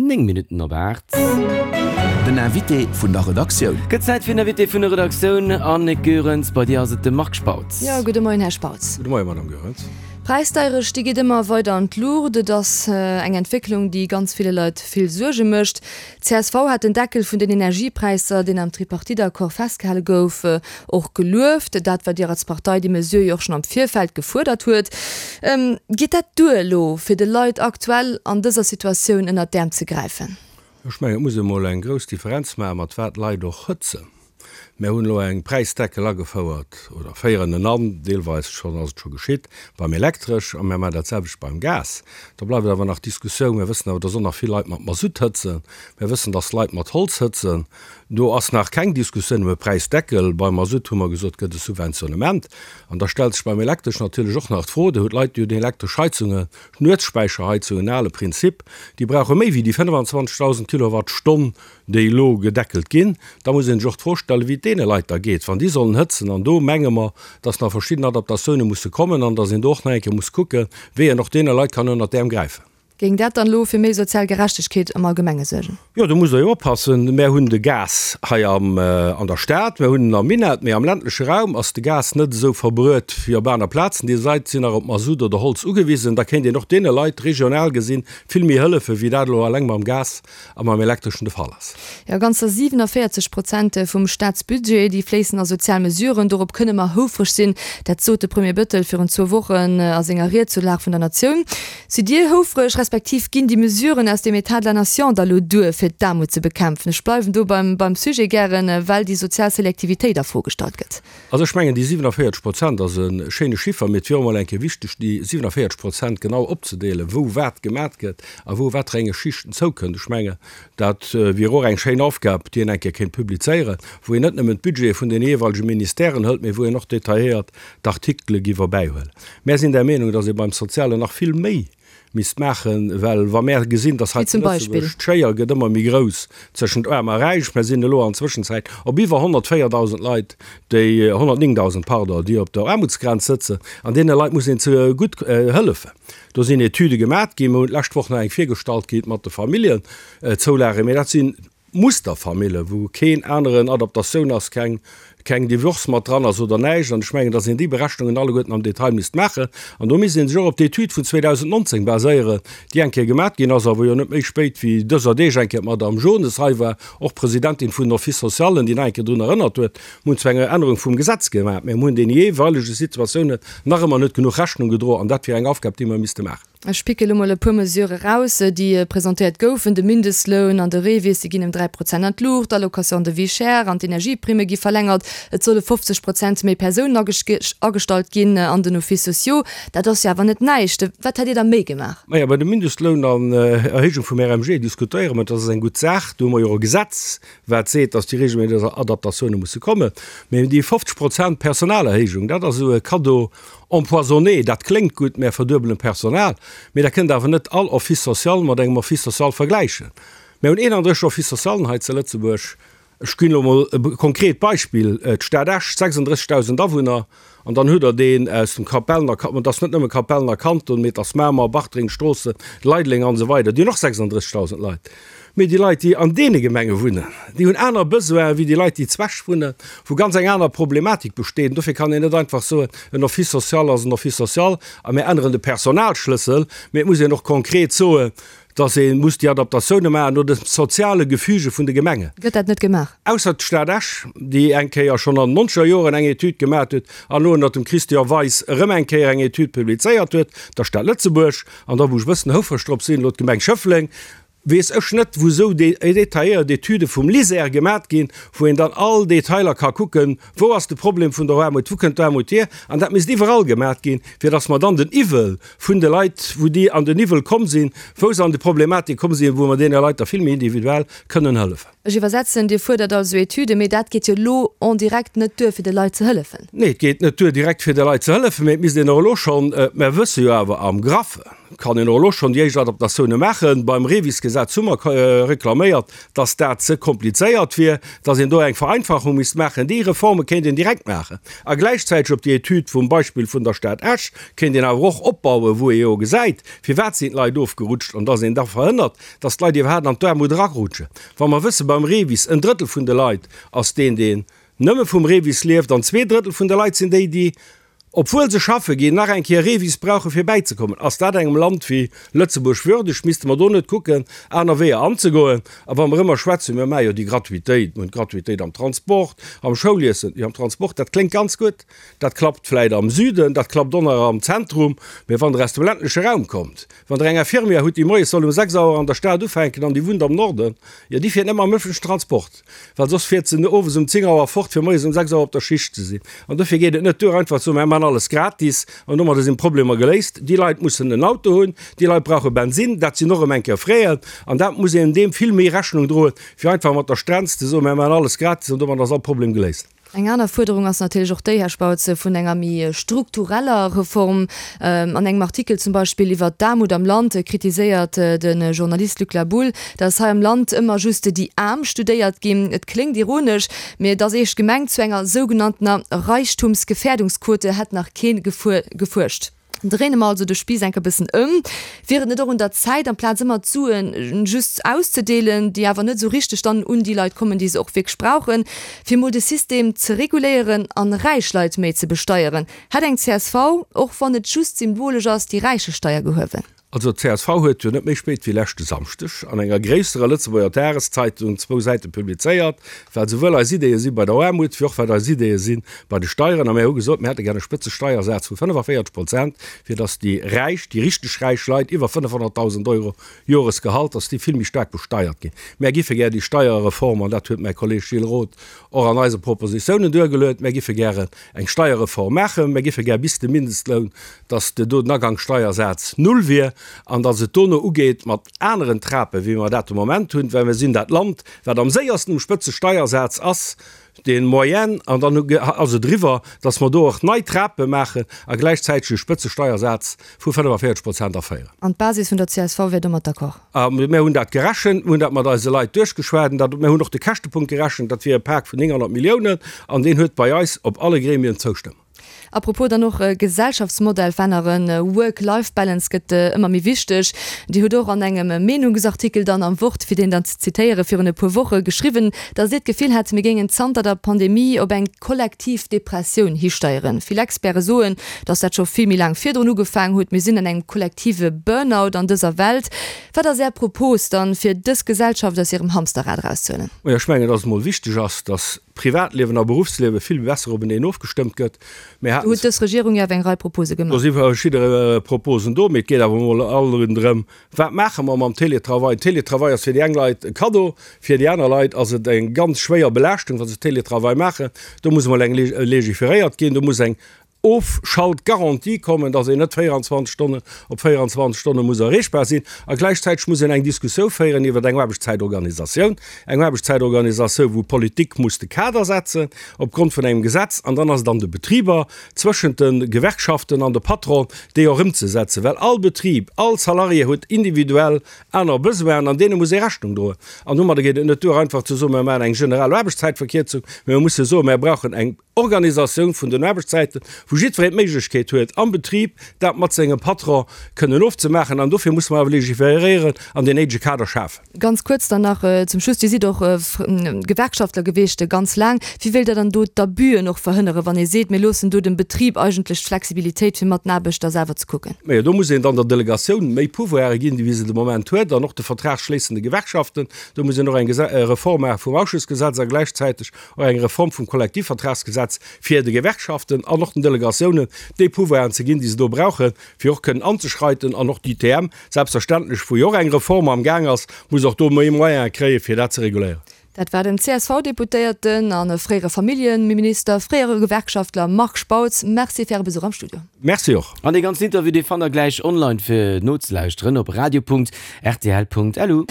9 Minutten op 8. Den Invité vun der Redaktioun. Gëtt Zäit fir den Invité vun der Redaktioun. Annick Goerens, bei dir ass et de Marc Spautz. Jo, gudde Moien, Här Spautz. Gudde Moien, Madame Goerens. D'Präisdeierecht, déi geet ëmmer weider an d'Luucht. Et ass eng Entwécklung, déi ganz ville Leit vill Suerge mécht. Csv hat den Deckel vun den Energiepräisser, deen am Tripartite-Accord festgehale gouf, och gelueft. Dat, wat Dir als Partei déi Mesure jo och schonn am Virfeld gefuerdert huet. Geet dat duer elo, fir de Leit aktuell an dëser Situatioun ënnert d'Äerm ze gräifen? Ech mengen, et muss ee mol eng grouss Differenz maachen, mat wat d'Leit och hëtzen. Mär hunn elo eng Präisdeckel agefouert, oder féieren en an, deelweis schonn ass et scho geschitt, beim Elektresch, a mär maachen dat selwecht beim Gas. Da bleift awer nach d'Diskussioun, mär wëssen awer, dass och nach vill Leit mat Masutt hëtzen, mär wëssen, dass Leit mat Holz hëtzen. Do ass nach keng Diskussioun ëm e Präisdeckel. Beim Masutt hu mer gesot, gëtt e Subventionnement. An da stellt sech beim Elektresch natierlech och nach d'Fro, Dir hutt Leit, déi hunn elektresch Heizungen, Nuetsspäicherheizungen, ale Prinzip, déi brauche méi wéi déi 25.000 Kilowattstonn, déi elo gedeckelt ginn, da muss ee sech och d'Fro stellen, wéi et deene Leit da geet, wann déi sollen hëtzen. An do menge mer, dass nach verschidden Adaptatioune musse kommen an dass een do och nach eng Kéier muss kucken, wéi een och deene Leit kann ënnert d'Äerm gräifen. Géing dat dann elo fir méi sozial Gerechtegkeet am Allgemenge suergen? Jo, do musst Der jo oppassen. Mär hunn de Gas hei am, an der Stad, mär hunn en am Minett, mee am ländleche Raum ass de Gas net esou verbruet wéi op aner Plazen. Déi Leit sinn nach op Masutt oder Holz ugewisen. Da kéint een och deene Leit regional gesinn vill méi hëllefen, wéi dat elo eleng mam Gas a mam Elektreschen de Fall ass. Jo, ganzer 47 Prozent vum Staatsbudget, déi fléissen a sozial Mesuren. Dorop kënne mer houfreg sinn. Dat sot de Premier Bettel virun zwou Wochen a senger Ried zur Lag vun der Natioun. Sidd Dir houfreg, respektiv ginn déi Mesuren aus dem État de la Nation da lo duer, fir d'Aarmut ze bekämpfen? Ech bleiwen do beim Sujet gären, well déi sozial Selektivitéit a Fro gestallt gëtt. Also ech mengen, déi 47 Prozent ass e schéine Chiffer, mee et wier och emol eng Kéier wichteg, déi 47 Prozent genau opzedeelen, wou wat gemat gëtt a wou waterenge Schichten zoukënnt. Ech mengen, dat wier och eng schéin Aufgab, déi een eng Kéier kéint publizéieren, wou een net nëmmen d'Budgete vun den jeeweilege Ministèren hëlt, mee wou een och detailléiert d'Artikele giff erbäihuelen. Mär sinn der Meenung, datt ee beim Sozialen nach vill méi misst maachen, well wa mär gesinn, dass hei zu Lëtzebuerg d'Schéier gëtt ëmmer méi grouss tëschent Aarm a Räich, mär sinn elo an Zwëschenzäit op iwwer 104.000 Leit, déi, 109.000, pardon, déi op der Aarmutsgrenz sëtzen, an deene Leit muss een ze gutt hëllefen. Do sinn Etüde gemat ginn, mer hunn d'lescht Woch nach eng virgestallt kritt mat de Familljenzoulagen, mä dat sinn Musterfamille wou keen aneren Adaptatioun ass, keng keng Divorce mat dran ass oder näischt. An ech mengen, datt een déi Berechnungen alleguerten am Detail misst maachen. An do misst ee sech och op d'Etüd vun 2019 baséieren, déi eng Kéier gemat ginn ass a wou jo net méi spéit wéi dëser Deeg eng Kéier d'Madame Jones hei war, och Presidentin vun den Office socialen, déi nach eng Kéier drun erënnert huet. Mir hunn zwar eng Ännerung vum Gesetz gemat, mä mir hunn deene jeeweilege Situatiounen nach ëmmer net genuch Rechnung gedroen. An dat wier eng Aufgab, déi mer misste maachen. Ech picke lo mol e puer Mesure eraus, déi presentéiert goufen, De Mindestloun an de REVIS, déi ginn ëm 3 Prozent an d'Luucht, d'Allocation de vie chère an d'Energieprimme gi verlängert, et solle 50 Prozent méi Persounen agestallt ginn an den Offices sociaux. Dat ass jo awer net näischt. Wat hätt Dir da méi gemaach? Majo, bei dem Mindestloun an Erhéijung vum RMG diskutéiere mer, dat ass eng gutt Saach. Do hu mer jo och e Gesetz, wat seet, dass déi regelméisseg Adaptatioune musse kommen. Mee déi 50 Prozent Personalerhéijung, dat ass esou e Cadeau empoisonné. Dat kléngt gutt, mär verduebelen d'Personal, mee da kënnt awer net all Office social mat engem Office social vergläichen. Mär hunn 31 Office socialen hei zu Lëtzebuerg. Ech ginn elo emol e konkret Beispill, d'Stad Esch, 36.000 Awunner, an dann hutt Der deen aus dem Kapellener, an et ass net nëmme Kapellener Kanton, mee et ass Mamer, Bartreng, Stroossen, Leideleng an esou weider, déi hunn och 36.000 Leit. Mee déi Leit, déi an deene Gemenge wunnen, déi hunn aner Besoinen wéi déi Leit, déi zu Esch wunnen, wou ganz eng aner Problematik besteet. An dofir kann een net einfach soen, en Office social ass en Office social a mir änneren de Personalschlëssel. Mee et muss een och konkret soen, dass ee muss déi Adaptatioune maachen no de soziale Gefüge vun de Gemengen. Gëtt dat net gemaach? Ausser d'Stad Esch, déi eng Kéier schonn an den nonzeger Joren eng Etüd gemaach huet an elo ënnert dem Christian Weis erëm eng Kéier eng Etüd publizéiert huet, der Stad Lëtzebuerg, an da wou ech e bëssen houfreg drop sinn, elo d'Gemeng Schëffleng, weess ech net, wou esou detailléiert Etüde vum LISER gemat ginn, wou een dann all Detailer ka kucken, wou ass de Problem vun der Aarmut, wou kënnt d'Aarmut hier. An dat misst iwwerall gemat ginn, fir datt mer dann den Iwwel vun de Leit, wou déi an den Iwwel komm sinn, wou se an déi Problematik komm sinn, wou mer deene Leit da vill méi individuell kënnen hëllefen. Ech iwwersetzen, Dir fuerdert also Etüden, mee dat geet jo elo en direct net duer, fir de Leit ze hëllefen. Nee, et geet net duer direkt fir de Leit ze hëllefen, mee et misst een och elo schonn, mer wësse jo awer am Graffen. Kann een och elo schonn déi éischt Adaptatioune maachen. Beim REVIS-Gesetz hu mer reklaméiert, dass dat ze komplizéiert wier, dass een do eng Vereinfachung misst maachen. Déi Reforme kéint een direkt maachen. A gläichzäiteg op déi Etüd vum Beispill vun der Stad Esch kéint een awer och opbauen, wou ee jo gesäit, firwat sinn d'Leit ofgerutscht an dass een da verhënnert, dass d'Leit iwwerhaapt an d'Aarmut erarutschen. Wa mer wëssen, beim REVIS, en Drëttel vun de Leit ass deen, deen nëmme vum REVIS lieft an 2/3 vun de Leit sinn déi, déi obwuel se schaffe ginn, nach eng Kéier Revis brauche fir bäizekommen. Ass dat engem Land wéi Lëtzebuerg würdeg? Misste mer do net kucken, aner Weeër anzegoen? A wa mer ëmmer schwätzen, mir maache jo déi Gratuitéit, mir hunn d'Gratuitéit am Transport, am Schouliessen, jo am Transport, dat kléngt ganz gutt, dat klappt vläit am Süden, dat klappt och nach am Zentrum, mä wann Der aus dem ländleche Raum kommt, wann Der eng Infirmière hutt, déi moies soll um 6 Auer an der Stad ufänken an déi wunnt am Norden, jo déi fiert net mam ëffentlechen Transport. Well soss fiert se owes um 10 Auer fort, fir moies um 6 Auer op der Schicht ze sinn. An dofir geet et net duer, einfach ze soen, Mir maachen alles gratis an domadder sinn d'Problemer geléist. Déi Leit mussen en Auto hunn, déi Leit brauche Bensinn, dat sinn och erëm eng Kéier Fräen. An dat muss een deem vill méi Rechnung droen, wéi einfach mat der Strenz ze soen, Mir maachen alles gratis an domadder ass all Problem geléist. Eng aner Fuerderung ass natierlech och déi, Här Spautz, vun enger méi struktureller Reform. An engem Artikel zum Beispill iwwert d'Aarmut am Land kritiséiert de Journalist Luc Laboulle, datt hei am Land ëmmer just déi Aarm studéiert ginn. Et kléngt ironesch, mee et ass eescht gemengt, Zu enger sougenanntener Reichtumsgefährdungsquote hätt nach kee gefuerscht. Dréine mer also de Spiiss enk e bëssen ëm. Wier et net och un der Zäit, amplaz ëmmer d'Sue just auszedeelen, déi awer net esou richteg dann un déi Leit kommen, déi se och wierklech brauchen, fir mol de System ze reguléieren an räich Leit méi ze besteieren? Hätt eng csv, och wann et just symbolesch ass, déi Räichesteier gehuewen? Also d'CSV huet jo net méi spéit wéi leschte Samschdeg an enger gréisserer Lëtzebuerger Dageszeitung zwou Säite publizéiert, wat esouwuel eis Ideeë si bei der Aarmut, wéi och wat eis Ideeë si bei de Steieren. A mir hu gesot, mir hätte gär e Spëtzesteiersaz vu 45 Prozent, fir datt déi Räich, déi richteg räich Leit iwwer 500.000 Euro Joresgehalt, datt déi vill méi staark besteiert ginn. Mär giffe gär déi Steierreform, an dat huet mäi Kolleeg Gilles Roth och an eise Propositiounen duergeluet, mär giffe gären eng Steierreform maachen, mär giffe gär bis de Mindestloun, datt do den Agangssteiersaz null wier an datt et dono ugeet mat aneren Trapen, wéi mer dat de Moment hunn, well mir sinn dat Land, wat am séiersten um Spëtzesteiersaz ass, de Moyenne, an dann ass et eriwwer, datt mer do och nei Trape maachen a gläichzäiteg e Spëtzesteiersaz vu 45 Prozent aféieren. An d'Basis vun der csv wär domat d'accord? A mir hunn dat gerechent, mir hunn dat mat eise Leit duerchgeschwat, an dat, mir hunn och de Käschtepunkt gerechent, dat wier e Pak vun 900 Milliounen, an deen huet bei eis op alle Gremien d'Zoustëmmung. A propos dann och Gesellschaftsmodell veränneren, Work-Life-Balance gëtt ëmmer méi wichteg. Dir hutt och an engem Meenungsartikel dann am Wort, fir deen dann ze zitéieren, virun e puer Woche geschriwwen, datt Dir d'Gefill hätt, mir géingen zanter der Pandemie op eng kollektiv Depressioun histeieren. Vill Experte soen, datt dat scho vill méi laang virdrun ugefaang huet. Mir sinn an engem kollektive Burnout an dëser Welt. Wat ass Är Propos dann, fir dës Gesellschaft aus hirem Hamsterrad erauszehuelen? Ech mengen, datt et emol wichteg ass, datt Privatliewen a Beruffsliewe vill besser openeen ofgestëmmt gëtt. Mir haten. Do huet dës Regierung jo awer eng Rei Propose gemaach. Do si verschidde Proposen do, mee et geet awer emol alt erëm drëm, Wat maache mer mam Télétravail? Télétravail ass fir déi eng Leit e Kaddo, fir déi aner Leit ass et eng ganz schwéier Belaaschtung, wa se Télétravail maachen. Do muss emol eng legiferéiert ginn, do muss eng Ofschaltgarantie kommen, dass een net 24 Stonnen op 24 Stonne muss erreechbar sinn. A gläichzäiteg muss een eng Diskussioun féieren iwwer eng Aarbechtszäitorganisatioun, eng Aarbechtszäitorganisatioun, wou d'Politik muss de Kader setzen opgrond vun engem Gesetz. An dann ass et an de Betriber, zwëschent de Gewerkschaften an de Patron, déi och ëmzesetzen, well all Betrib, all Salarié huet individuell aner Besoinen an deene muss ee Rechnung droen. An domadder geet et net duer, einfach ze soen, mir maachen eng generell Aarbechtszäitverkierzung, mä mir musse soen, mir brauchen eng Organisatioun vun den Aarbechtszäiten, wou jiddwereen d'Méiglechkeet huet, am Betrib dat mat sengem Patron kënnen ofzemaachen. An dofir musse mer awer legiferéieren an deen néidege Kader schafen. Ganz kuerz dann nach zum Schluss, Dir sidd och Gewerkschaftler gewiescht ganz laang. Wéi wéilt Der dann do d'Abüen och verhënneren, wann ee seet, mir loossen do dem Betrib eigentlech d'Flexibilitéit, fir mat den Aarbechter selwer ze kucken? Majo, do muss een dann der Delegatioun méi Pouvoire ginn, wéi se de Moment huet, an och de vertragsschléissende Gewerkschaften. Do muss een och eng Reform maache vum Ausschussgesetz a gläichzäiteg och eng Reform vum Kollektivvertragsgesetz, fir de Gewerkschaften an och den Delegatiounen déi Pouvoiren ze ginn, déi se do brauchen, fir och kënnen anzeschreiten. An och d'ITM, selbstverständlech, wou jo och eng Reform am Gaang ass, muss och do méi Moyene kréien, fir dat ze reguléieren. Dat war den CSV-Deputéierten a fréiere Familljeminister, fréiere Gewerkschaftler Marc Spautz. Merci fir Äre Besuch am Studio. Merci och. An dee ganzen Interview, dee fannt der gläich online fir nozelauschteren op radio.rtl.lu.